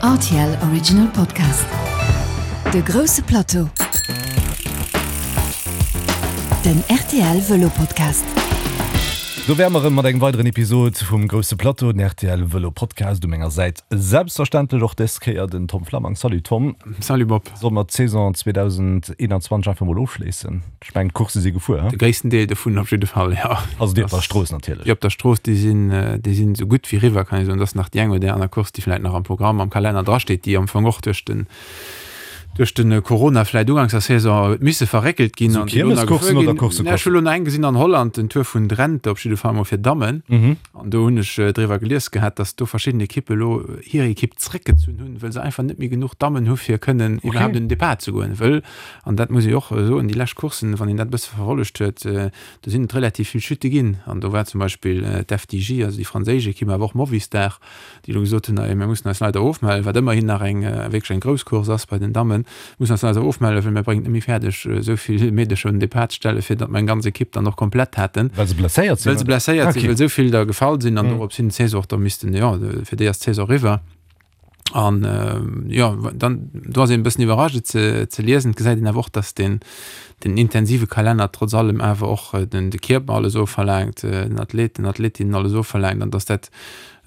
Rtl Original Podcast. De grousse Plateau. Den rtl Vëlo Podcast. Do wäre mer erëm mat engem weideren Episod vum Grousse Plateau, den rtl Vëlo Podcast. U menger Säit selbstverständlech och dës Kéier den Tom Flammang. Salut Tom. Salut Bob. Solle mer d'Saison 2021 einfach mol ofschléissen? Ech mengen d'Coursse si gefuer, he? De gréissten Deel dovun op jidde Fall, jo. Also déi op der Strooss natierlech. Déi op der Strooss, déi sinn, déi sinn esou gutt wéi eriwwer, kann ee soen. Et ass nach déi eng oder déi aner Course, déi vläicht nach am Programm, am Kalenner drasteet, déi am Fong och duerch den, duerch de Corona vläicht uganks der Saison huet misse verréckelt ginn Esou an déi elo nach gefuer Kiermescourssen oder ginn. Coursse, Ech hu Courssen? elo nach eng gesinn an Holland, den Tour vun Drenthe op jidde Fall mol fir Dammen. An do hunn ech driwwer gelies gehat, datt do verschidden Ekippe elo hir Ekipp zréckgezunn hunn, wëll se einfach net méi genuch Dammen hu fir kënnen iwwerhaapt un den Depart ze goen. Wëll, an dat muss ee och soen, déi lescht Courssen, wann een dat e bësse verfollegt huet, do sinn et relativ vill Chute ginn. An do war zum Beispill d'FDJ, also déi franséisch Ekipp, awer och Movistar, déi elo gesot hunn, mir mussen eis leider ofmellen, wat ëmmerhin nach eng wierklech eng grouss Course ass bei den Dammen, mussen eis leider ofmellen, well mir bréngen et net méi fäerdeg, esou vill Meedercher un den Depart ze stellen, fir datt mer eng ganz Ekipp dann och komplett hätten. Well se blesséiert sinn? Well se blesséiert sinn, well esou vill der gefall sinn an dorops hin d'Saison och da missten, jo, fir déi ass d'Saison eriwwer. An jo, dann do ass een e bëssen iwwerrascht et ze ze liesen. Et gesäit een awer och, datt deen den intensive Kalenner trotz allem awer och den de Kierper alles ofverlaangt, den Athleten, Athletinnen alles ofverlaangt an datt dat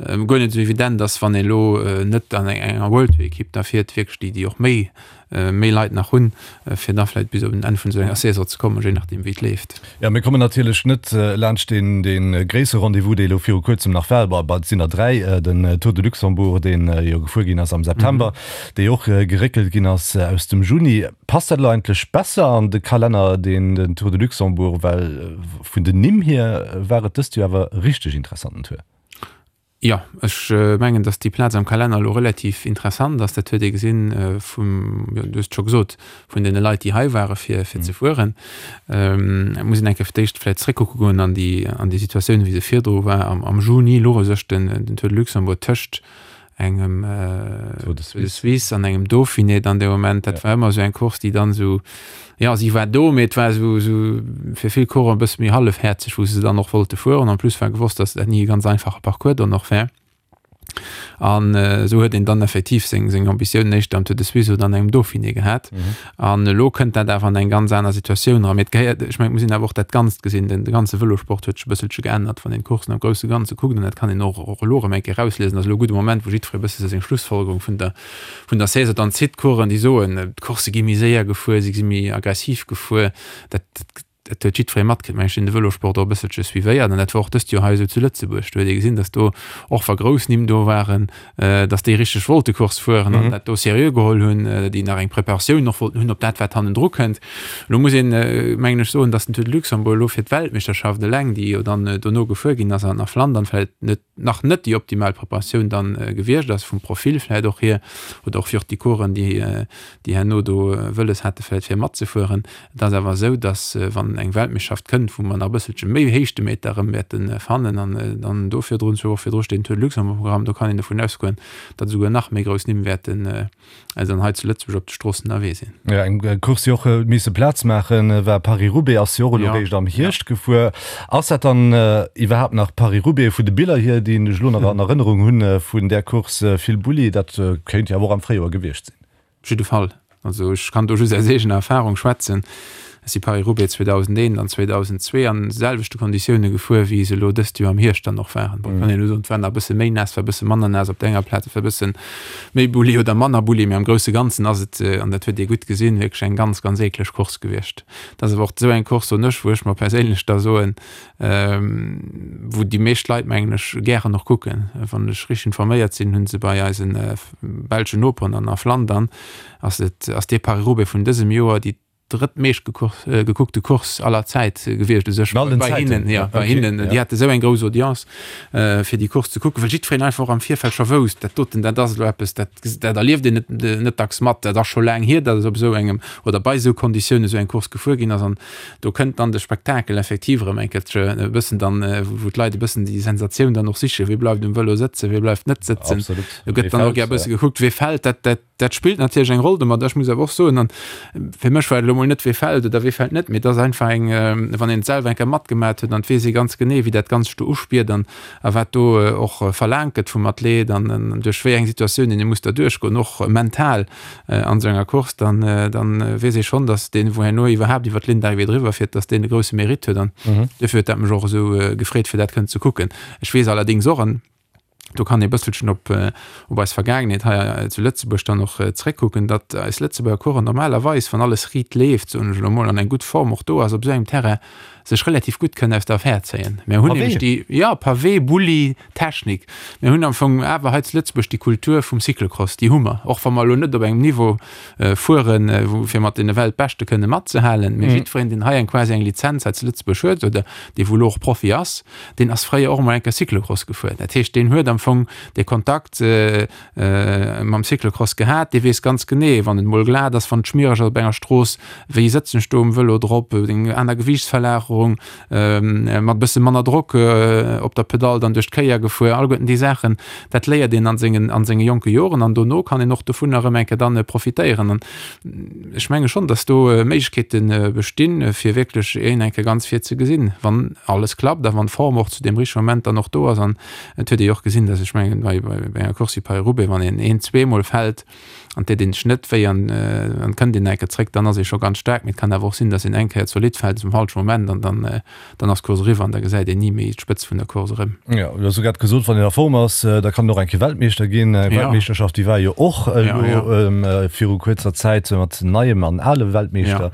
guer net esou evident ass, wann ee lo net an enger World Tour Ekipp da fiert, wierklech déi déi och méi méi Leit nach hunn, fir da vläicht bis op en Enn vun esou enger Saison ze kommen, je nachdeem wéi et leeft. Jo, mir kommen natierlech net laanscht deen dee gréissere Rendez-vous, dee elo viru kuerzem nach war, bon, et sinn der 3, den Tour de Luxembourg, dee jo gefuer ginn ass am September, dee och geréckelt ginn ass aus dem Juni. Passt dat elo eigentlech besser an de Kalenner, deen den Tour de Luxembourg, well vun den Nimm hier war et dëst Joer awer e richteg interessanten Tour. Jo, ech mengen, datt déi Plaz am Kalenner elo relativ interessant ass. Dat huet ee gesinn vum, jo, du hues et scho gesot, vun deene Leit, déi hei ware fir, fir ze fueren. Et muss een eng Kéier fir d'éischt vläicht zréckkucke goen an déi, an déi Situatioun, wéi se virdru war. Am, am Juni louch u sech den, den Tour de Luxembourg tëscht engem Tour de Suisse an engem Dauphiné dann dee Moment. Dat war ëmmer esou eng Course, déi dann esou, jo, si war do, mee et war esou, esou fir vill Coureuren e bësse méi hallefhäerzeg, wou se dann och wollte fueren. En plus war gewosst, datt dat ni e ganz einfache Parcours dann och wär. An esou huet een dann effektiv seng, seng Ambitiounen éischter am Tour de Suisse oder an engem Dauphiné gehat. An elo kënnt dat awer an eng ganz aner Situatioun eran. Mee et gehéiert, ech mengen, et muss een awer och dat Ganzt gesinn. Den de ganze Vëlosport huet sech e bësselche geännert, wann een d'Coursen am grousse Ganze kuckt. An dat kann een och och elo erëm eng Kéier erausliesen. Ass elo e gudde Moment, wou jiddweree e bësse sou seng Schlussfolgerung vun der vun der Saison dann zitt. D'Coureuren, déi soen, d'Course gi méi séier gefuer, si gi méi aggressiv gefuer. Dat dat huet jiddweree matkritt, mengen ech, deen de Vëlosport och e bësselche suivéiert. An dat war och dëst Joer hei esou zu Lëtzebuerg. Do huet ee gesinn, datt do, och wa grouss Nimm do waren, datt déi richteg wollte Course fueren an dat do seriö geholl hunn, déi nach eng Preparatioun och wollten hunn op dat, wat hannendru kënnt. Elo muss een, mengen ech, soen, datt den Tour de Luxembourg elo fir d'Weltmeeschterschaft eleng, déi jo dann dono gefuer ginn ass an a Flandern, vläicht net nach net déi optimal Preparatioun dann gewiescht ass, vum Profil vläicht och hier, oder och fir och déi Coureuren, déi déi herno do wëlles hate vläicht fir matzefueren. Et ass awer esou, datt wann eng Weltmeeschterschaft kënnt, wou mer nach e bësselche méi Héichtemeter erëm wäerte fannen an dann do virdrun, zwou Woche virdru steet den Tour de Luxembourg um Programm, do kann een dovun ausgoen, datt esouguer nach méi grouss Nimm wäerten dann hei zu Lëtzebuerg op de Stroossen ënnerwee sinn. Jo, eng Course déi och huet misse Plaz maachen, war Paris-Roubaix, ass jo och elo réischt am Hierscht gefuer. Ass dat dann iwwerhaapt nach Paris-Roubaix vun de Biller hier, déi ech elo nach an Erënnerung hunn vun där Course, vill Bulli, dat kéint jo awer och am Fréijoer gewiescht sinn. Op jidde Fall. Also ech kann do just aus eegener Erfahrung schwätzen. Ech si Paris-Roubaix 2001 an 2002 an selwechte Konditioune gefuer, wéi se elo dëst Joer am Hierscht dann och waren. Bon, kann een elo soen, et war nach e bësse méi naass, war e bësse manner naass op der enger Plaz, et war e bësse méi Bulli oder manner Bulli, mee am grousse Ganzen ass et, an dat huet ee gutt gesinn, wierklech eng ganz, ganz eekleg Course gewiescht. Et ass awer och esou eng Course, soen ech, wou ech mer perséinlech da soen, wou déi meescht Leit, mengen ech, gären och kucken. Wann ech richteg informéiert sinn, hu se bei eise belschen Noperen an a Flandern, ass et, ass dee Paris-Roubaix vun dësem Joer déi drëttmeescht gekuckte Course aller Zäit gewiescht u sech bei hinnen, jo, bei hinnen. Déi hate sou eng grouss Audience, fir déi Course ze kucken, well jiddwereen einfach och am Virfeld scho wousst, dat doten, dat ass elo eppes, dat, dat erlieft een net, net dacks mat. Dat ass scho laang hier, datt et op esou engem oder bei esou Konditiounen esou eng Course gefuer ginn ass. An do kënnt dann de Spektakel effektiv erëm eng Kéier e bëssen dann, wou d'Leit e bëssen déi Sensatioun dann och sichen, wie bleift um Vëlo sëtzen, wie bleift net sëtzen. Do gëtt dann och gär e bësse gekuckt, wie fält. Dat, dat. dat spillt natierlech eng Roll domat. Ech muss awer och soen, an fir mech war et elo mol net, wee fält oder wee fält net, mee et ass einfach eng, wann een et selwer eng Kéier matgemat huet, an et weess ee ganz genee, wéi dat Ganzt sech do uspiert an a wat do och verlaangt gëtt vum Athlet an duerch wéi eng Situatiounen ee muss da duerchgoen, och mental an esou enger Course, dann, dann weess ee schonn, datt deen, wou herno iwwerhaapt iwwer d'Ligne d'arrivée driwwer fiert, datt deen e grousse Mérite huet. An duerfir huet dat mech och esou gefreet, fir dat kënnen ze kucken. Ech weess allerdéngs och, an do kann ee bësselchen op, op eis Vergaangenheet hei zu Lëtzebuerg dann och zréckkucken, datt eis Lëtzebuerger Coureuren normalerweis, wann alles riit leeft, soen ech elo mol, an eng gutt Form och do ass op esou engem Terrain, sech relativ gutt kënnen aus der Affär zéien. Mir hunn nämlech déi, jo, Pavé, Bulli, Technik. Mir hunn am Fong awer hei zu Lëtzebuerg déi Kultur vum Cyclocross, déi hu mer, och wa mer elo net op engem Niveau fueren, wou fir mat deene Weltbeschte kënne matzehalen. Mee jiddwereen, deen hei eng quasi eng Lizenz hei zu Lëtzebuerg huet oder dee wou elo och Profi ass, deen ass fréier och emol eng Kéier Cyclocross gefuer. Dat heescht, deen huet am Fong dee Kontakt mam Cyclocross gehat, dee weess ganz genee, wann et emol glat ass, wann et schmiereg ass op enger Strooss, wéi sëtzen ech do um Vëlo drop, eng aner Gewiichtsverlagerung, mat e bësse manner Drock op der Pedall dann duerch d'Kéier gefuer, alleguerten déi Saachen, dat léiert een an sengen, an senge jonke Joren an dono kann een och dovunner erëm eng Kéier dann profitéieren. An ech menge schonn, datt do Méiglechkeete bestinn, fir wierklech een eng Kéier ganz vir ze gesinn, wann alles klappt a wann d'Form och zu deem richtege Moment dann och do ass. An et huet ee jo och gesinn, datt ech mengen, bei enger Course wéi Paris-Roubaix, wann een een, zweemol fält, an deet een sech net wéi an an kënnt een eng Kéier zréck, dann ass ee scho ganz staark. Mee et kann awer och sinn, datt een eng Kéier zolidd fält zum falsche Moment an dann dann ass d'Course eriwwer an da gesäit een ni méi d'Spëtzt vun der Course erëm. Jo, du hues jo grad gesot, wann een a Form ass, da kann een och eng Kéier Weltmeeschter ginn. Eng Weltmeeschterschaft, déi war jo och elo viru kuerzer Zäit mat neiem an ale Weltmeeschter.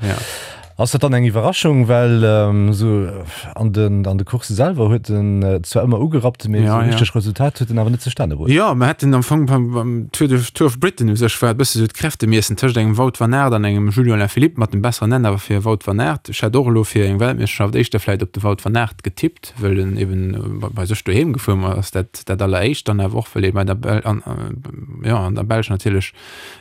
Ass dat dann eng Iwwerraschung, well esou an den an de Coursse selwer huet en zwar ëmmer ugerappt, mee esou richteg Resultat huet en awer net zustane bruecht. Jo, mer hätten am Fong beim beim Tour de Tour of Britain u sech war et bësse sou d'Kräftemiessen tëscht engem Wout van Aert an engem Julian Alaphilippe mat dem besseren Enn awer fir Wout van Aert. Ech hätt och elo fir eng Weltmeeschterschaft éischter vläit op de Wout van Aert getippt, wëll en eben bei sech doheem gefuer ass, dat dat alleréischt, dann awer och wëll ee bei der Bel an jo an der Belsch natierlech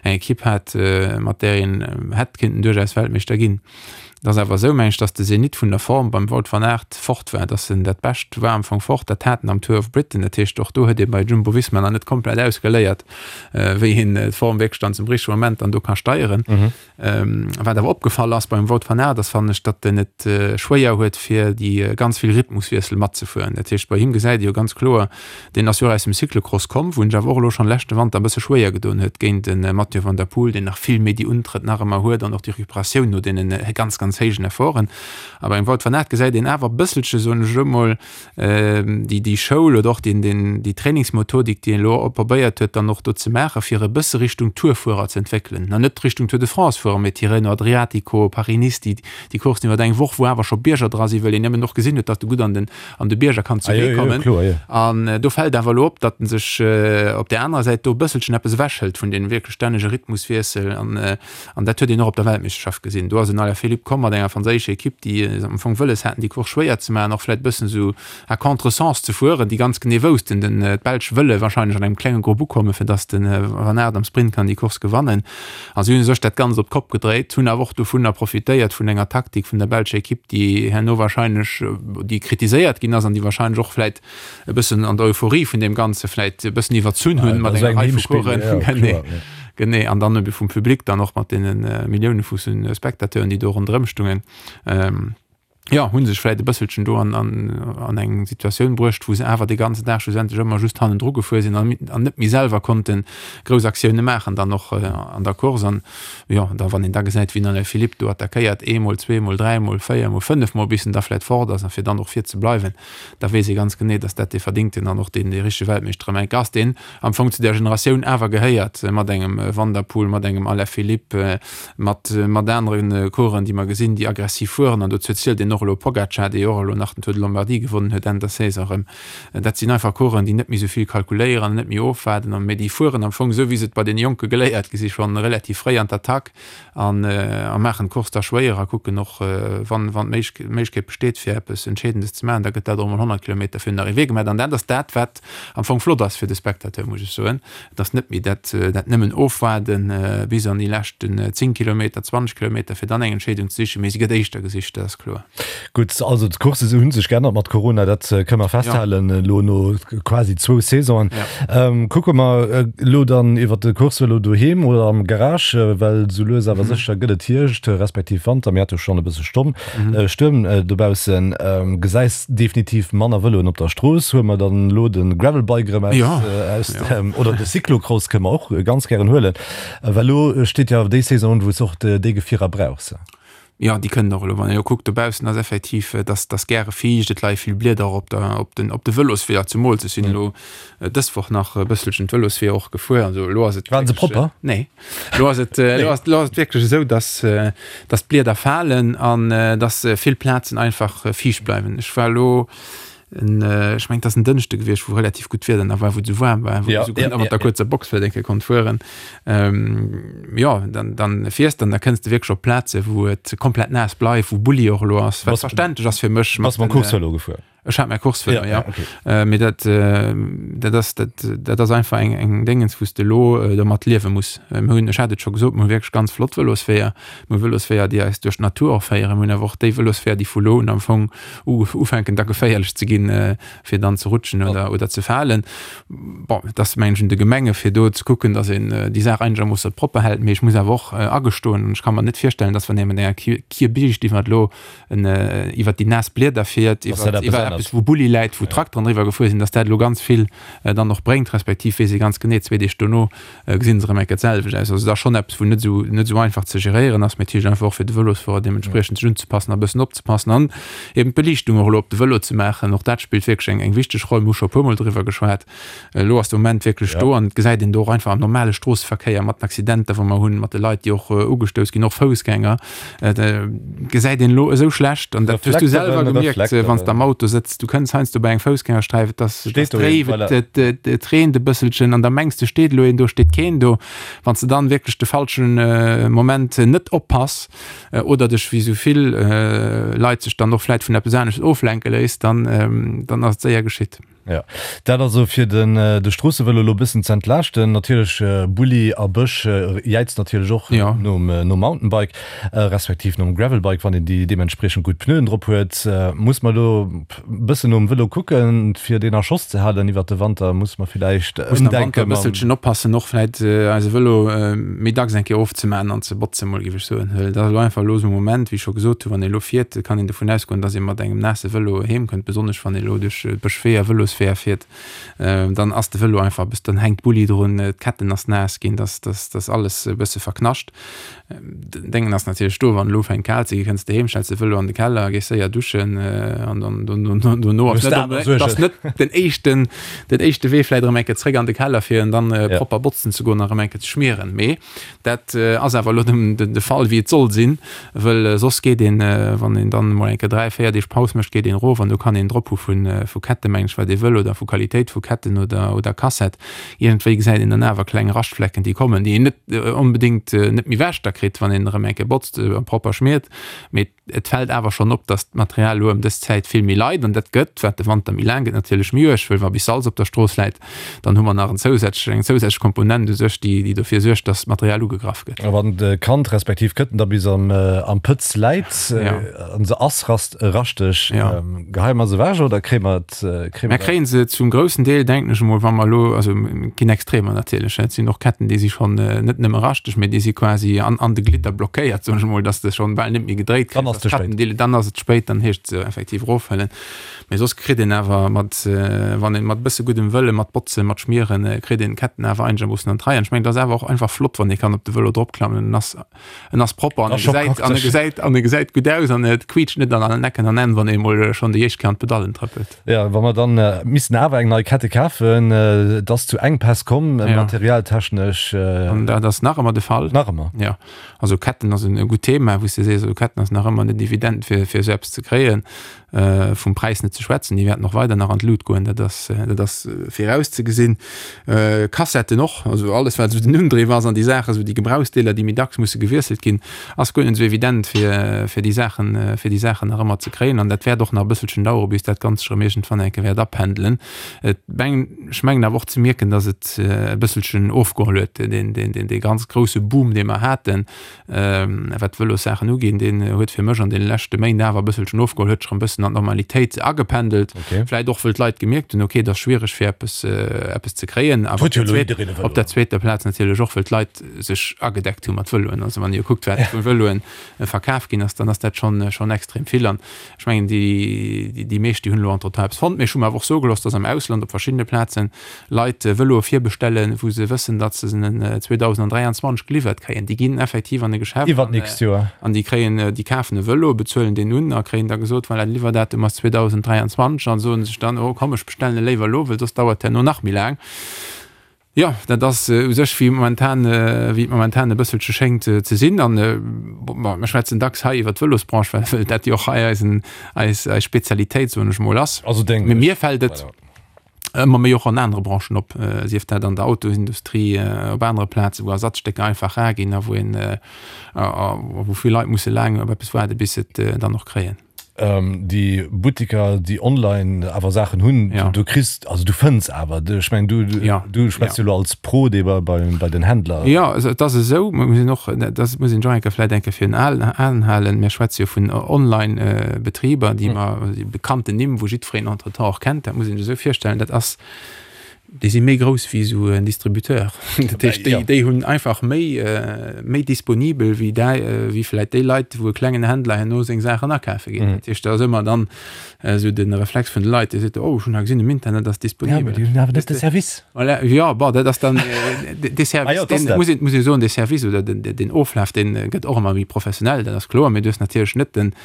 eng Ekipp hat, mat där een hätt kéinten duerchaus Weltmeeschter ginn. Et ass awer esou, meng ech, datt de Zenit vun der Form beim Wout van Aert fort war, datt en dat Bescht war am Fong fort, dat hat en am Tour of Britain. Dat heescht, och do huet ee bei Jumbo-Visma nach net komplett ausgeléiert, wéi een d'Form wierklech dann zum richtege Moment dann do ka steieren. Wat awer opgefall ass beim Wout van Aert ass, fannen ech, datt en et schwéier huet fir déi ganz vill Rhythmuswiessel matzefueren. Dat heescht, bei him gesäit ee jo ganz kloer, deen ass jo och aus dem Cyclocross komm, wou en sech awer och elo schonn leschte Wanter e bësse schwéier gedoen huet géint de Mathieu van der Poel, deen nach vill méi déi Untrëtt nach ëmmer huet an och déi Recuperatioun no deenen ganz, ganz héijen Efforten. A beim Wout van Aert gesäit een awer e bësselche, soen ech elo mol, déi déi Schoul oder och deen deen déi Trainingsmethodik, déi een elo probéiert huet dann och do ze maachen, fir e bësse Richtung Tourfuerer ze entwéckelen, na net Richtung Tour de France fuerer, mee Tirreno Adriatico, Paris-Nice, déi déi Coursen iwwer eng Woch, wou awer scho Bierger dra sinn, well een nëmmen och gesinn huet, datt e gutt an den an de Bierger kann zuwee kommen. An do fält awer elo op, datt en sech op där anerer Säit do e bësselchen eppes ewechhëlt vun deem wierklech stännege Rhythmuswiessel an An dat huet een och op der Weltmeeschterschaft gesinn. Do ass en Alaphilippe komm mat enger franséischer Ekipp, déi am Fong wëlles haten, déi Course schwéier ze maachen, och vläicht e bëssen esou à contre-sens ze fueren, déi ganz genee woussten, den d'Belsch wëlle wahrscheinlech an engem klenge Grupp ukommen, fir datt de Van Aert am Sprint kann déi Course gewannen. A si hunn u sech dat Ganzt op d'Kopp gedréit, hunn awer och dovunner profitéiert vun enger Taktik vun der belscher Ekipp, déi herno wahrscheinlech, déi kritiséiert ginn ass an déi wahrscheinlech och vläicht e bëssen an der Euphorie vun deem Ganze vläit e bëssen iwwerzunn hunn mat enger Rei vu Coursen. Genee, genee. An dann ebe vum Public dann och mat deene Millioune vu Spectateuren, déi do ronderëm stungen, jo, hu sech vläit e bësselchen do an, an, an eng Situatioun bruecht, wou se awer de ganzen Dag schlussendlech ëmmer just hannendru gefuer sinn an, an net méi selwer konnte grouss Aktioune maachen dann och an der Course. An jo, da wann een da gesäit, wéi den Alaphilippe do attackéiert, eemol, zweemol, dräimol, véiermol, fënnefmol, bis en da vläit fort ass a fir dann och vir ze bleiwen, da weess ee ganz genee, dass dat dee verdingten an och deen dee richtege Weltmeeschter ëm eng ass, deen am Fong zu där Generatioun awer gehéiert, mat engem Van der Poel, mat engem Alaphilippe, mat mat anere Coureuren, déi mer gesinn, déi aggressiv fueren. An dozou zielt een och elo Pogacar, dee jo och elo nach den Tour de Lombardie gewonnen huet Enn der Saison erëm. Dat sinn einfach Coureuren, déi net méi esou vill kalkuléieren an net méi ofwaarden, mee déi fueren am Fong esou, wéi se et bei deene Jonke geléiert gi si schonn relativ fréi an d'Attack. An a maachen d'Course da schwéier a kucken och, wann wann d'Méiglechkeet besteet, fir eppes Entscheedendes ze maachen, da gëtt dat och emol 100 Kilometer virun der Arrivée gemaach. An dat ass dat, wat am Fong flott ass fir de Spectateur, muss ech soen. Et ass net méi dat dat nëmmen Ofwaarden bis an déi leschten 10 Kilometer, 20 Kilometer, fir dann eng Entscheedung ze sichen, mee se gëtt éischter gesicht, dat ass kloer. Gutt, also d'Coursse hu sech geännert mat Corona, dat kënne mer festhalen, elo no quasi zwou Saisonen. Kucke mer elo dann iwwer de Coursevëlo doheem oder am Garage, well sou lues awer sécher gëtt et Hierscht, respektiv Wanter. Mir hate schonn e bësse Stomm, Stuerm dobaussen. Gesäis definitiv manner Vëloen op der Strooss. Huele mer dann elo de Gravelbike erëm aus, oder de Cyclocross kënne mer och ganz gären huelen, well elo steet jo awer déi Saison un, wou s och déi Gefierer brauchs. Jo, déi kënnen och elo, wann een elo kuckt dobaussen ass effektiv, et ass, et ass gäre fiicht, et leie vill Blieder op der, op den, op de Vëlosweeër zemools. Ech sinn elo dës Woch nach e bësselchen d'Vëlosweeër och gefuer, also elo ass et Waren se propper? Nee, elo ass et, elo ass, elo ass et wierklech esou, dass, dass d'Blieder falen an dass vill Plazen einfach fiicht bleiwen. Ech war elo En, ech mengen, et ass en Dënschde gewiescht, wou relativ gutt Wieder nach war, wou et esou waarm war, wou ja, esou ja, mat der kuerzer Box vläicht eng Kéier konnt fueren. Ähm, ja, dann, dann fiers dann, da kënns de wierklech op Plaze, wou et komplett naass bleift, wou Bulli och elo ass, wat verständlech ass fir mech. Bass mam Coursevëlo gefuer? Ech hat mäi Coursevëlo, ja. ja. Okay. Äh, mee dat, äh, dat ass, dat, dat ass einfach eng, eng Déngens, wou s de elo äh, domat liewe muss. Äh, mir hunn, ech hat et scho gesot, mir hu wierklech ganz flott Vëlosweeër. Mir hu Vëlosweeër, déi eis duerch d'Natur och féieren. Mir hunn awer och déi Vëlosweeër, déi vu lo un am Fong ufänken da geféierlech ze ginn, fir dann ze rutschen oder, oder ze falen. Bon, et ass mengen ech un de Gemenge fir do ze kucken, datt een déi Saach einegermoosse propper hält. Mee ech muss awer och agestoen, an ech ka mer net virstellen, datt wann ee mat enger Kierbiischt iwwer elo en iwwer déi naass Blieder fiert, iwwer iwwer eppes wou Bulli läit, wou Trakteren driwwer gefuer sinn, datt dat elo ganz vill dann och bréngt, respektiv weess ee ganz genee zwee Deeg dono, gesinn se erëm eng Kéier d'selwecht aus. Also et ass schonn eppes, wou net esou, net esou einfach ze geréieren ass, mee natierlech einfach och fir de Vëlosfuerer deementspriechend sech unzepassen a bëssen opzepassen an eben d'Beliichtung och elo op de Vëlo ze maachen. Och dat spillt wierklech eng, eng wichteg Roll. Mir hu scho e puermol driwwer geschwat. Elo ass de Moment wierklech do an et gesäit een do och einfach am normale Stroosseverkéier mat den Accidenter, wou mer hunn, mat de Leit, déi och ugestouss ginn, och Foussgänger, et gesäit een elo esou schlecht an dat hues du selwer gemierkt, wann s de am Auto sëtz, du kënns heiansdo bei eng Foussgängersträif, et ass dréif, et et reent e bësselchen an da mengs de steet elo een do, steet keen do. Wann s de dann wierklech de falschen Moment net oppass oder dech wéi esou vill Leit sech dann och vläit vun eppes anescht oflenke léiss, dann dann ass et séier geschitt. Jo, dat also fir den de Stroossevëlo elo e bëssen ze entlaaschten. Natierlech Bulli a Bësch jäizt natierlech och nom nom Mountainbike, respektiv nom Gravelbike, wann een déi deementspriechend gutt Pneuen drop huet. Muss mer elo e bëssen nom Vëlo kucken, fir deen a Schoss ze halen iwwert de Wanter? Muss mer villäicht ëmdenken? Muss am Wanter e bësselchen oppassen, och vläit eise Vëlo méi dacks eng Kéier ofzemaachen an ze botzen, mol géif ech soen. Well dat ass elo einfach elo esou e Moment, wéi ech scho gesot hunn, wann ee elo fiert, kann een dovun ausgoen, dass ee mat engem naasse Vëlo heem kënnt, besonnesch wann ee elo duerch Bëschweeër, Vëlosweeër fiert, dann ass de Vëlo einfach e bëssen, dann hänkt Bulli drun, d'Ketten ass naass ginn, dass dass dass alles e bësse verknascht. Den Déngen ass natierlech do, wann elo ufänkt kal ze ginn, kënns de heem, stells de Vëlo an de Keller, gees séier duschen an dann dono ass net ass net den éischten den éischte Wee vläit erëm eng Kéier zréck an de Keller fir en dann propper botzen ze goen a erëm eng Kéier ze schmieren. Mee Dat ass awer elo de Fall, wéi et soll sinn, wëll soss geet een, wann een dann emol eng Kéier 3, 4 Deeg Paus mécht, geet een erof an do kann een drop hu vu Ketten, mengen ech, wat ee wëll, oder vu Qualitéit vu Ketten oder Kassett. Iergendwéi gesäit een dann awer kleng Raschtflecken, déi kommen, déi een net onbedéngt net méi ewech da kritt, wann een erëm eng Kéier botzt a propper schmiert. Mee Et fält awer schonn op, dass d'Material elo ëm dës Zäit vill méi leit an dat gëtt, wat de Wanter méi laang gëtt, natierlech méi uerg, wëll wa bis Salz op der Strooss läit, dann hu mer nach en zousätzlech, eng zousätzlech Komponent u sech, déi, déi dofir suergt, dass d'Material ugegraff gëtt. A wann d'Kand respektiv d'Këtten da bis am, am Pëtz läit an se ass rast, raschteg, geheie mer se ewech oder kréie mer et, kréie mer. Mer kréie se zum groussen Deel, denken ech emol, wa mer elo, also et ginn Extremer natierlech, et sinn och Ketten, déi si schonn net nëmme raschteg, mee déi si quasi an, an de Glidder blockéiert, soen ech emol, datt s de schonn bal net méi gedréit kriss. Dann ass et ze spéit. Dann ass et spéit, dann heescht et se effektiv erofhuelen. Mee soss kritt een awer mat, wann een mat e bësse guddem Wëlle, mat Botzen, mat Schmieren, kritt een d'Ketten awer einegermoossen an d'Rei. An ech mengen, et ass awer och einfach flott, wann ee kann op de Vëlo dropklammen, en ass En ass propper an e gesäit, an e gesäit, an e gesäit gutt aus an et quietscht net an allen Ecken an Enn, wann ee mol schonn déi éischt Kéier an d'Pedallen trëppelt. Jo, wa mer dann missten awer eng nei Kette kafen, et ass zu Enkpäss komm, materialtechnesch. An dat ass nach ëmmer de Fall. Nach ëmmer? Jo. Also Ketten ass en gutt Thema, wou s de sees, also Ketten ass nach ëmmer net evident fir, fir esou eppes ze kréien. Vum Präis net ze schwätzen, déi wäerten och weider nach an d'Lut goen, dat ass, dat ass virauszegesinn. Kassetten och, also alles wat esou den Undriff ass an déi Saachen, esou déi Gebrauchsdeeler, déi méi dacks musse gewiesselt ginn, ass guer net esou evident fir, fir déi Saachen, fir déi Saachen nach ëmmer ze kréien. An dat wäert och nach e bësselchen dauere bis dat Ganzt sech erëm iergendwann eng Kéier wäert apendelen. Et meng, ech mengen awer och ze mierken, datt et e bësselchen ofgeholl huet, deen, deen, deen, dee ganz grousse Boom, dee mer haten, wat d'Vëlossaachen uginn, deen huet fir mech. Rush an deene leschte Méint awer e bësselchen ofgeholl, huet sech erëm e bëssen an d'Normalitéit agependelt. Okay. Vläit och, wëll d'Leit gemierkt hunn, okay, et ass schwiereg fir eppes, eppes ze kréien. Awer Huet jo elo jiddereen e Vëlo. op der zweeter Plaz natierlech och, wëll d'Leit sech agedeckt hu mat Vëloen. Also wann Dir kuckt, wat vu Vëloen verkaf ginn ass, dann ass dat schonn, schonn extrem vill. An ech mengen, déi, déi meescht, déi hunn elo entretemps eppes fonnt. Mee ech hu mer awer och soe gelooss, dass am Ausland op verschiddene Plazen Leit Vëloe virbestellen, wou se wëssen, datt se se 2023 geliwwert kréien. Déi ginn effektiv an e Geschäft Iwwer d'nächst Joer. an déi kréien, déi kafen e Vëlo, bezuelen deen un a kréien da gesot, voilà, de Liwwerdatum ass 2023 an soen sech dann, oh komm, ech bestellen e léiwer elo, well soss dauert herno nach méi laang. Jo, dat ass u sech wéi momentan, wéi et momentan e bësselche schéngt ze sinn. An bon, mir schwätzen dacks hei iwwer d'Vëlosbranche, well well dat jo och hei eisen, eis, eis Spezialitéit, soen ech mol, ass. Also deng. Mee mir fält et. Voilà. ëmmer méi och an anere Branchen op, sief dat an der Autosindustrie, op anere Plazen, wou Ersatzstécker einfach rar ginn a wou een, a wou vill Leit musse laang op eppes waarde bis se et dann och kréien. Déi Buttiker, déi online awer Saachen hunn, du kriss, also du fënns awer, ech mengen du, du schwätz jo elo als Pro, dee bei, bei den Händler. Jo, also et ass esou, mer mussen och, dat muss een och eng Kéier vläicht eng Kéier virun Aen halen, mir schwätze jo vun Online-Betriber, déi mer, déi bekannten Nimm, wou jiddwereen entretemps och kennt, dat muss een sech esou virstellen, dat ass, déi si méi grouss wéi esou en Distributeur. Dat heescht, déi, déi hunn einfach méi, méi disponibel wéi däi, wéi vläicht déi Leit, wou e klengen Händler herno seng Saachen akafe geet. Dat heescht, da ass ëmmer dann esou de Reflex vun de Leit, déi seet, oh, ech hunn hei gesinn, um Internet ass disponibel. Ja, mee déi hunn awer net de Service. Voilà, jo, bon, dat ass dann dee Service, deen, muss een, muss ee soen, dee Service oder den, den Oflaf, dee gëtt och ëmmer méi professionell, dat ass kloer, mee du hues natierlech net den,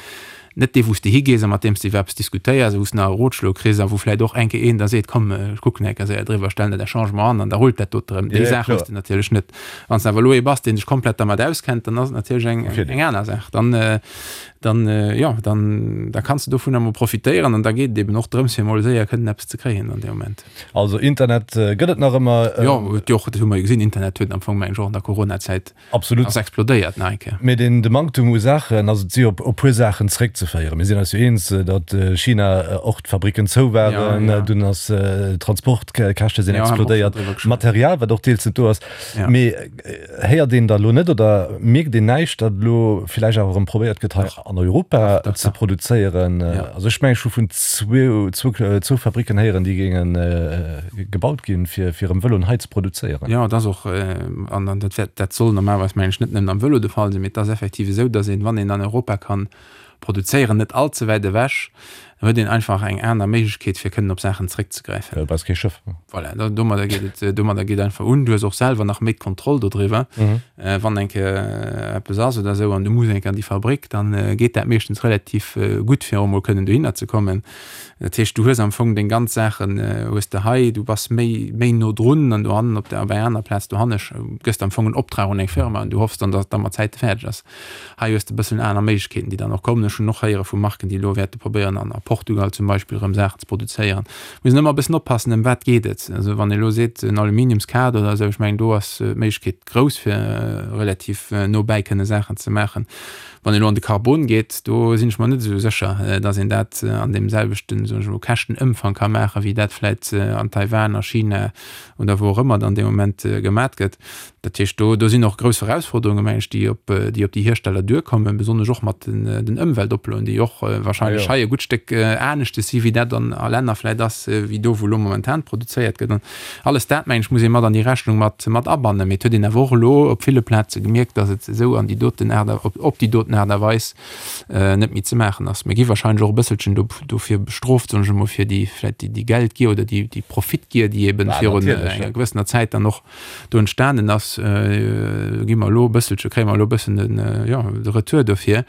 Net dee wou s de higees a mat deem s de iwwer eppes diskutéiers a wou s de nach e Rotschlo kriss a wou vläicht och eng Kéier een da seet, komm ech kucken eng Kéier séier driwwer, stellen dat Changement an an da rullt dat dote erëm. Déi Saach hues de natierlech net. Wann s de awer elo ee bass, dee sech komplett dermat auskennt, dann ass et natierlech eng, eng aner Saach. Dann, dann, jo, dann, da kanns de dovunner emol profitéieren an da geet et eben och drëms, fir emol séier kënnen eppes ze kréien an deem Moment. Also Internet gëtt et nach ëmmer. Jo, huet jo och, dat hu mer jo gesinn, Internet huet am Fong, mengen ech, och an der Coronazäit Absolut. Ass explodéiert nach eng Kéier. Mee den de Manktum u Saachen, also et si op e puer Saachen zeréckzeféieren. Mir sinn eis jo eens, datt China och d'Fabricken zou waren, dunn ass d'Transportkäschte sinn explodéiert, Material wat och deels net do ass. Mee héiert een da elo net oder mierkt een näischt, datt elo villäicht awer erëm probéiert gëtt hei an Europa ze produzéieren? Also ech mengen ech hu vun zwou Fabricken héieren, déi géinge gebaut ginn, fir erëm Vëloen hei ze produzéieren. Jo, et ass och, an dat wäert, dat soll normalerweis mengen ech net nëmmen am Vëlo de Fall sinn, mee et ass effektiv esou, datt een, wann een an Europa kann produzéieren, net all ze wäit ewech, da huet een einfach eng aner Méiglechkeet fir kënnen op Saachen zréckzegräifen. Du brauchs kee Schëff. Voilà, domadder geet et, domadder geet einfach un. Du hues och selwer nach méi d'Kontroll dodriwwer. Wann eng Kéier eppes ass oder esou an du muss eng Kéier an déi Fabrik, dann geet dat meeschtens relativ gutt fir och emol kënnen dohinner ze kommen. Dat heescht, du hues am Fong deng ganz Saachen hues de hei, du bass méi, méi no drun an dohannen op der, op enger aner Plaz dohanne gëss de am Fong en Optrag un eng Firma an du hoffs dann, datt et da mat Zäite fäerdeg ass. Hei hues de e bëssen aner Méiglechkeeten, déi dann och kommen. Ech hunn och héiere vu Marken, déi elo wäerte probéieren an a Portugal zum Beispill erëm Saachen ze produzéieren. Muss een ëmmer e bëssen oppassen, ëm wat geet et. Also wann ee elo seet en Aluminiumskader oder esou, ech mengen do ass d'Méiglechkeet grouss fir relativ no bäi kënne Saachen ze maachen. Wann een elo an de Carbon geet, do sinn ech mer net esou sécher, datt een dat an deem selwechten, soen ech elo, Käschtenëmfang ka maachen, wéi dat vläit an Taiwan, a China oder wou och ëmmer dann dee Moment gemat gëtt. Dat heescht, do, do sinn och grouss Erausforderungen, meng ech, déi op, déi op déi Hiersteller duerkommen, besonnesch och mat den, den Ëmweltoploen, déi och wahrscheinlech hei e gutt Stéck aneschtes si wéi dat an a Länner vläit ass, wéi do, wou elo momentan produzéiert gëtt. An Alles dat, mengen ech, muss ee mat an déi Rechnung mat, mat abannen. Mee et huet een awer och elo op ville Plaze gemierkt, datt et esou an déi doten Aart a, op, op déi doten Aart a Weis net méi ze maachen ass. Mir gi wahrscheinlech och e bësselchen do, dofir bestrooft, soen ech emol, fir déi, vläicht déi, déi Geldgier oder déi, déi Profitgier, déi eben virun enger gewëssener Zäit dann och do entstanen ass. Gi mer elo e bësselche, kréie mer elo e bëssen den, jo, de Retour dofir.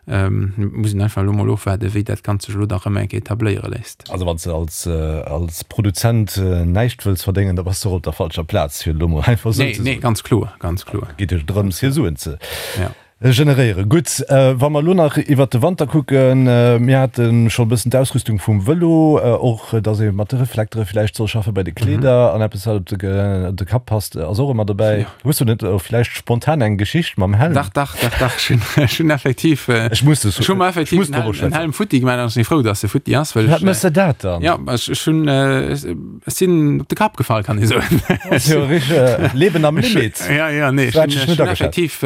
Muss een einfach elo mol ofwaarden, wéi dat Ganzt sech elo da rëm eng Kéier etabléiere léisst. Also wann s de als, als Produzent näischt wëlls verdéngen, da bass de och op der falscher Plaz, fir et elo mol einfach esou ze soen. Nee, nee, ganz kloer, ganz kloer. Et geet jo drëms, hir Suen ze generéieren. Gutt, wa mer elo nach iwwert de Wanter kucken, mir hate scho e bëssen d'Ausrüstung vum Vëlo, och datt ee mat de Reflektere villäicht soll schaffen bei de Kleeder an eppes, wat op de Kapp passt, ass och ëmmer dobäi. Hues du net och villäicht spontan eng Geschicht mam Helm? Dach, dach, dach, dach, ech hunn, ech hunn effektiv, Ech muss ech hu mer effektiv muss en Helm, en Helm futti gemaach an ech sinn frou, dass e futti ass, well Wat méchs de dat dann? Ja, ech, ech hunn, ech sinn op de Kapp gefall, kann ee soen. Ass jo richteg Leben am Limit. Ja, ja, nee, ech hunn, ech hunn effektiv.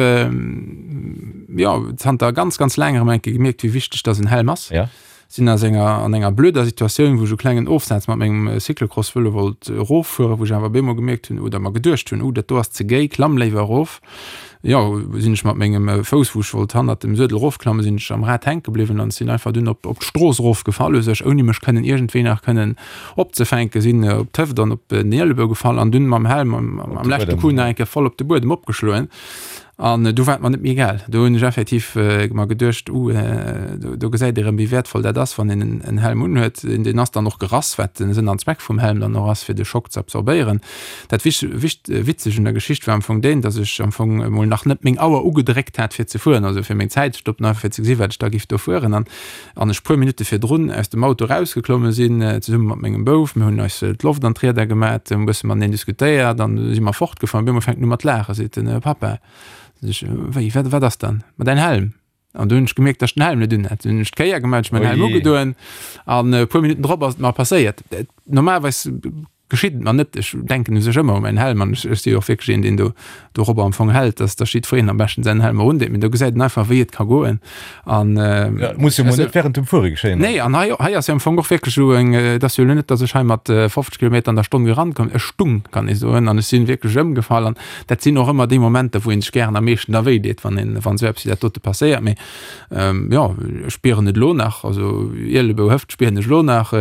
jo, zanter ganz, ganz laang erëm eng Kéier gemierkt, wéi wichteg dass en Helm ass. Ja. Sinn aus enger, an enger blöder Situatioun, wou ech e klengen Ofsaz mat mengem Cyclocross-Vëlo wollt eroffueren, wou ech awer op eemol gemierkt hunn oder mer geduecht hunn, oh, dat do ass ze géi, klamm léiwer erof. Jo, sinn ech mat mengem Fouss, wou ech wollt hannert dem Suedel erofklammen, sinn ech am Rad hänke bliwwen an sinn einfach dunn op, op d'Strooss erofgefall u sech, ouni mech kënnen iergendwéi nach kënnen opzefänken. Sinn op d'Hëft an op den Ielebou gefall an dunn mam Helm am, am leschte Coup nach eng Kéier voll op de Buedem opgeschloen. An du war et mer net méi egal. Do hunn ech effektiv mer geduecht, uh, do gesäit ee rëm, wéi wäertvoll dat ass, wann een en Helm unhuet. Deen ass dann och gerass, wat den Sënn an Zweck vum Helm dann och ass, fir de Schock ze absorbéieren. Dat Witzegt un der Geschicht war am Fong deen, datt ech am Fong emol nach net meng Auer ugedréckt hat, fir ze fueren, also fir meng Zäit ze stoppen, einfach fir ze gesi wat ech da giff do fueren. An an ech puer Minutte virdrun aus dem Auto erausgeklomme sinn, zesumme mat mengem Bouf. Mir hunn eis d'Loft an d'Rieder gemat, hunn e bësse mateneen diskutéiert an du si mer fortgefuer. An op eemol fänkt en u mat laachen, seet en, Papa, sot ech, wéi, wat, wat ass dann? Ma däin Helm. An du hunn ech gemierkt, datt ech den Helm net un hat. Dunn hunn ech d'Kéier gemat, ech mäin Helm ugedoen an e puer Minutten drop ass et mer passéiert. Normalerweis Geschitt et mer net. Ech denken u sech ëmmer u mäin Helm an ech si jo och wierklech een, deen do dorobber am Fong hält, dass dass jiddwereen am beschten säin Helm erundeet. Mee do gesäit een einfach, wéi et ka goen. An Ja, et muss jo mol net während dem Fuere geschéien. Nee, an hei hei ass jo am Fong och wierklech esou eng, et ass jo elo net, dass ech hei mat 50 Kilometer an der Stonn gerannt komm, ech stung, kann ee soen, an ech si wierklech ëmgefall. An dat sinn och ëmmer déi Momenter, wou ee sech gären am meeschten da wéi deet, wann een, wann esou eppes wéi dat dote passéiert. Mee jo, ech spieren et elo nach, also Ielebou, Hëft spieren ech elo nach.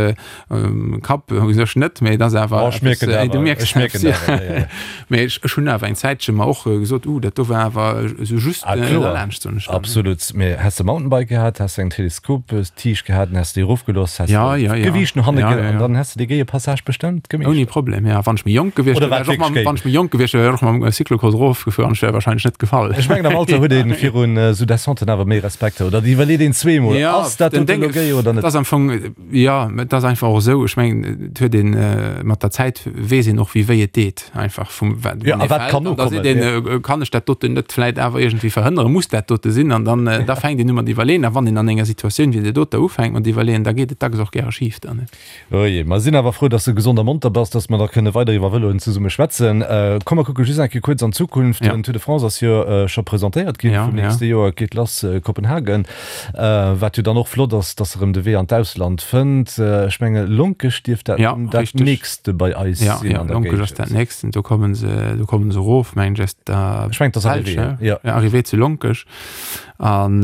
Kapp u sech net, mee et ass awer Oh, ech mierken eppes, dat du awer. mierks Ech mierken eppes, dat awer, ja, ja. Mee ech, ech hunn awer eng Zäitche mer och gesot, uh, dat do war awer esou just Ah, kloer. derlaanscht, soen ech dann. Absolut. Mee häss de Mountainbike gehat, häss de eng Teleskoptiicht gehat, an häss de déi erofgelooss, häss Ja, de ja, ja. d'Gewiicht no hanne Ja, ge ja, an ja. dann häss de dee géie Passage bestëmmt Ouni gemeeschtert. Problem, ja. Wann ech méi jonk gewiescht Oder wär, war wär ech och et wierklech mam, géi? wann ech méi jonk gewiescht wär, wär ech och mam Cyclocross erofgefuer an ech wär wahrscheinlech net gefall. Ech mengen, am Alter huet ee virun esou Descenten awer méi Respekt, oder et iwwerleet een zweemol, Ja, Ass dat den dote Ding, elo géi oder et net? ass am Fong, Jo, et ass einfach och esou, ech mengen, et huet een, mat der Zäit weess een och, wéi wéi et deet, einfach vum wat Jo, a wat kann an da nokommen, seet een, kann ech dat doten net vläit awer iergendwéi verhënneren, muss dat dote sinn? An dann, da fänkt een u mat iwwerleeën. A wann een an enger Situatioun wéi där doter ufänkt mat iwwerleeën, da geet et dacks och gäre schif dann. Oje, mer sinn awer frou, dass de gesond a monter bass, dass mer da kënne weider iwwer Vëloen zesumme schwätzen. Komm, mer kucke just eng Kéier kuerz an d'Zukunft. Den Tour de France ass jo scho presentéiert ginn vum nächste Joer, et geet lass Kopenhagen. Wat jo dann och flott ass, dass erëm de Wee an d'Ausland fënnt. Ech menge Lonkech dierft dat ja, dat nächste bei eis ja, sinn ja, an der Lonkech ass dat Géigend. nächsten. Do kommen se, do kommen se erof, mengen ech, aus der Ech mengen, et ass Belsch, Arrivée, ne? ja. Ja, Arrivée zu Lonkech. An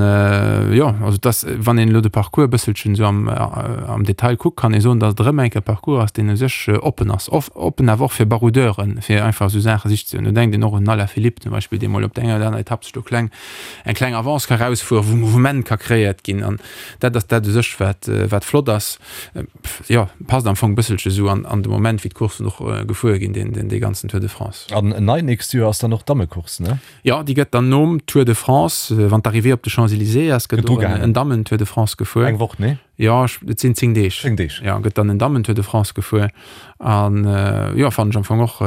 jo, also dass, wann een elo de Parcours e bësselchen esou am, am Detail kuckt, kann ee soen, dass et erëm eng Kéier e Parcours ass, deen u sech oppen ass. Off, oppen awer och fir Baroudeuren, fir einfach esou Saache sich ze hunn. Do denkt een och un den Alaphilippe zum Beispill, dee mol op der enger oder aner Etapp sech do kleng eng kleng Avance ka rausfueren, wou Mouvement ka kreéiert ginn an dat ass dat u sech wat wat flott ass. Jo, passt am Fong e bësselche sou an an de Moment wéi d'Courssen och gefuer ginn, deen deen dee ganzen Tour de France. An nei nächst Joer ass dann och d'Dammecourse, ne? Jo, déi gëtt dann nom Tour de France, wann d'Arrivée op de Champs-Élysées ass, gëtt Gëtt och en ugehaangen. en Dammen-Tour de France gefuer. Eng Woch, nee? Jo, et sinn 10 Deeg. 10 Deeg. Jo, gëtt dann en Dammen-Tour de France gefuer. An jo, fannen ech am Fong och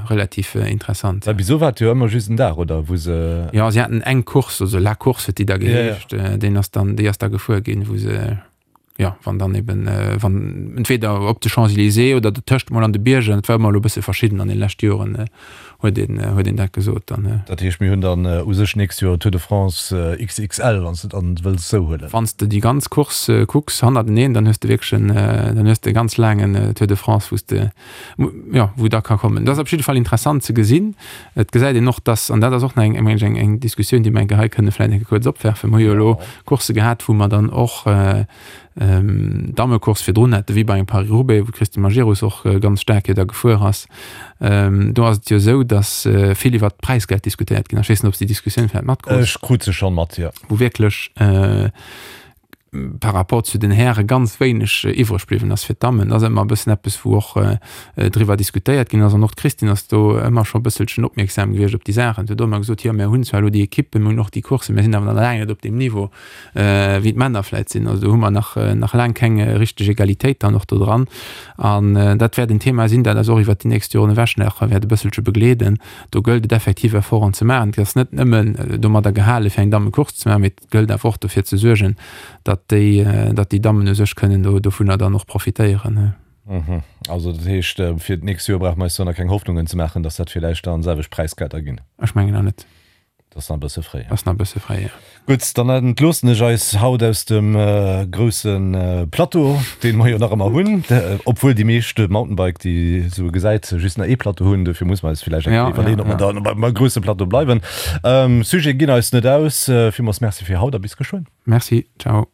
relativ interessant. Well bis elo war et jo ëmmer just en Dag, oder? Wou se. Jo, si haten eng Course, also La Course huet déi da geheescht. Deen ass dann, déi ass da gefuer ginn, wou se, jo, wann dann eben, wann entweder op de Champs-Élysées oder dertëscht mol an de Bierger. Et war ëmmer elo e bësse verschidden an de leschte Joren. Huet een, huet een dat gesot dann. Dat heescht, mir hunn dann u sech d'nächst Joer Tour de France XXL, wann s de et dann wëlls esou huelen. Wann s de déi ganz Course kucks hannerteneen, dann hues de wierklech en, dann hues de e ganz laangen Tour de France, wou s de, jo, wou da ka kommen. Dat ass op jidde Fall interessant ze gesinn. Et gesäit een och, dass, an dat ass och nach eng, meng ech, eng, eng Diskussioun, déi mer eng Kéier hei kënne vläicht eng Kéier kuerz opwerfen. Mer hu jo elo Coursse gehat, wou mer dann och, Dammecourse virdrun hätte wéi bei engem Paris-Roubaix, wou d'Christine Majerus och ganz staark jo da gefuer ass. Do ass et jo esou, datt vill iwwert d'Präisgeld diskutéiert ginn ass. Ech weess net, ob s de déi Diskussioun vläicht matkrus. Ech krut se schonn mat, jo. Wou wierklech par rapport zu den Häre ganz wéineg iwwreg bliwwen ass fir d'Dammen. Dat ass ëmmer e bëssen eppes, wou och driwwer diskutéiert ginn ass. An och d'Christine ass do ëmmer scho e bësselchen opmierksam gewiescht op déi Saachen. Si huet och ëmmer gesot, jo, mir hunn zwar elo déi Ekippen, mir hunn och déi Courssen, mir sinn awer nach laang net op deem Niveau. wéi d'Männer vläit sinn. Also do hu mer nach, nach laang keng richteg Egalitéit dann och do dran. An dat wäert en Thema sinn, dat eis och iwwert déi nächst Joren ewech nach wäert e bësselche begleeden. Do gëllt et effektiv Efforten ze maachen. Et ass net nëmmen domadder gehale fir eng Dammecourse ze maachen, mee et gëllt awer och dofir ze suergen, datt déi, datt déi Dammen u sech kënnen do dovunner dann och profitéieren. Also dat heescht, fir d'nächst Joer brauche mer eis do nach keng Hoffnungen ze maachen, datt dat villäicht dann selwecht Präisgelder ginn? Ech mengen nach net. Dat ass nach e bësse fréi. Ass nach e bësse fréi, jo. Gutt, dann entloossen ech eis haut aus dem grousse Plateau, dee mer jo nach ëmmer hunn, obwuel déi meescht Mountainbike, déi esou gesäit, just nach ee Plateau hunn. Dofir muss mer eis villäicht eng Kéier iwwerleeën, ob mer da beim grousse Plateau bleiwen. Sujete ginn eis net aus. Villmools Merci fir haut a bis geschwënn. Merci, ciao.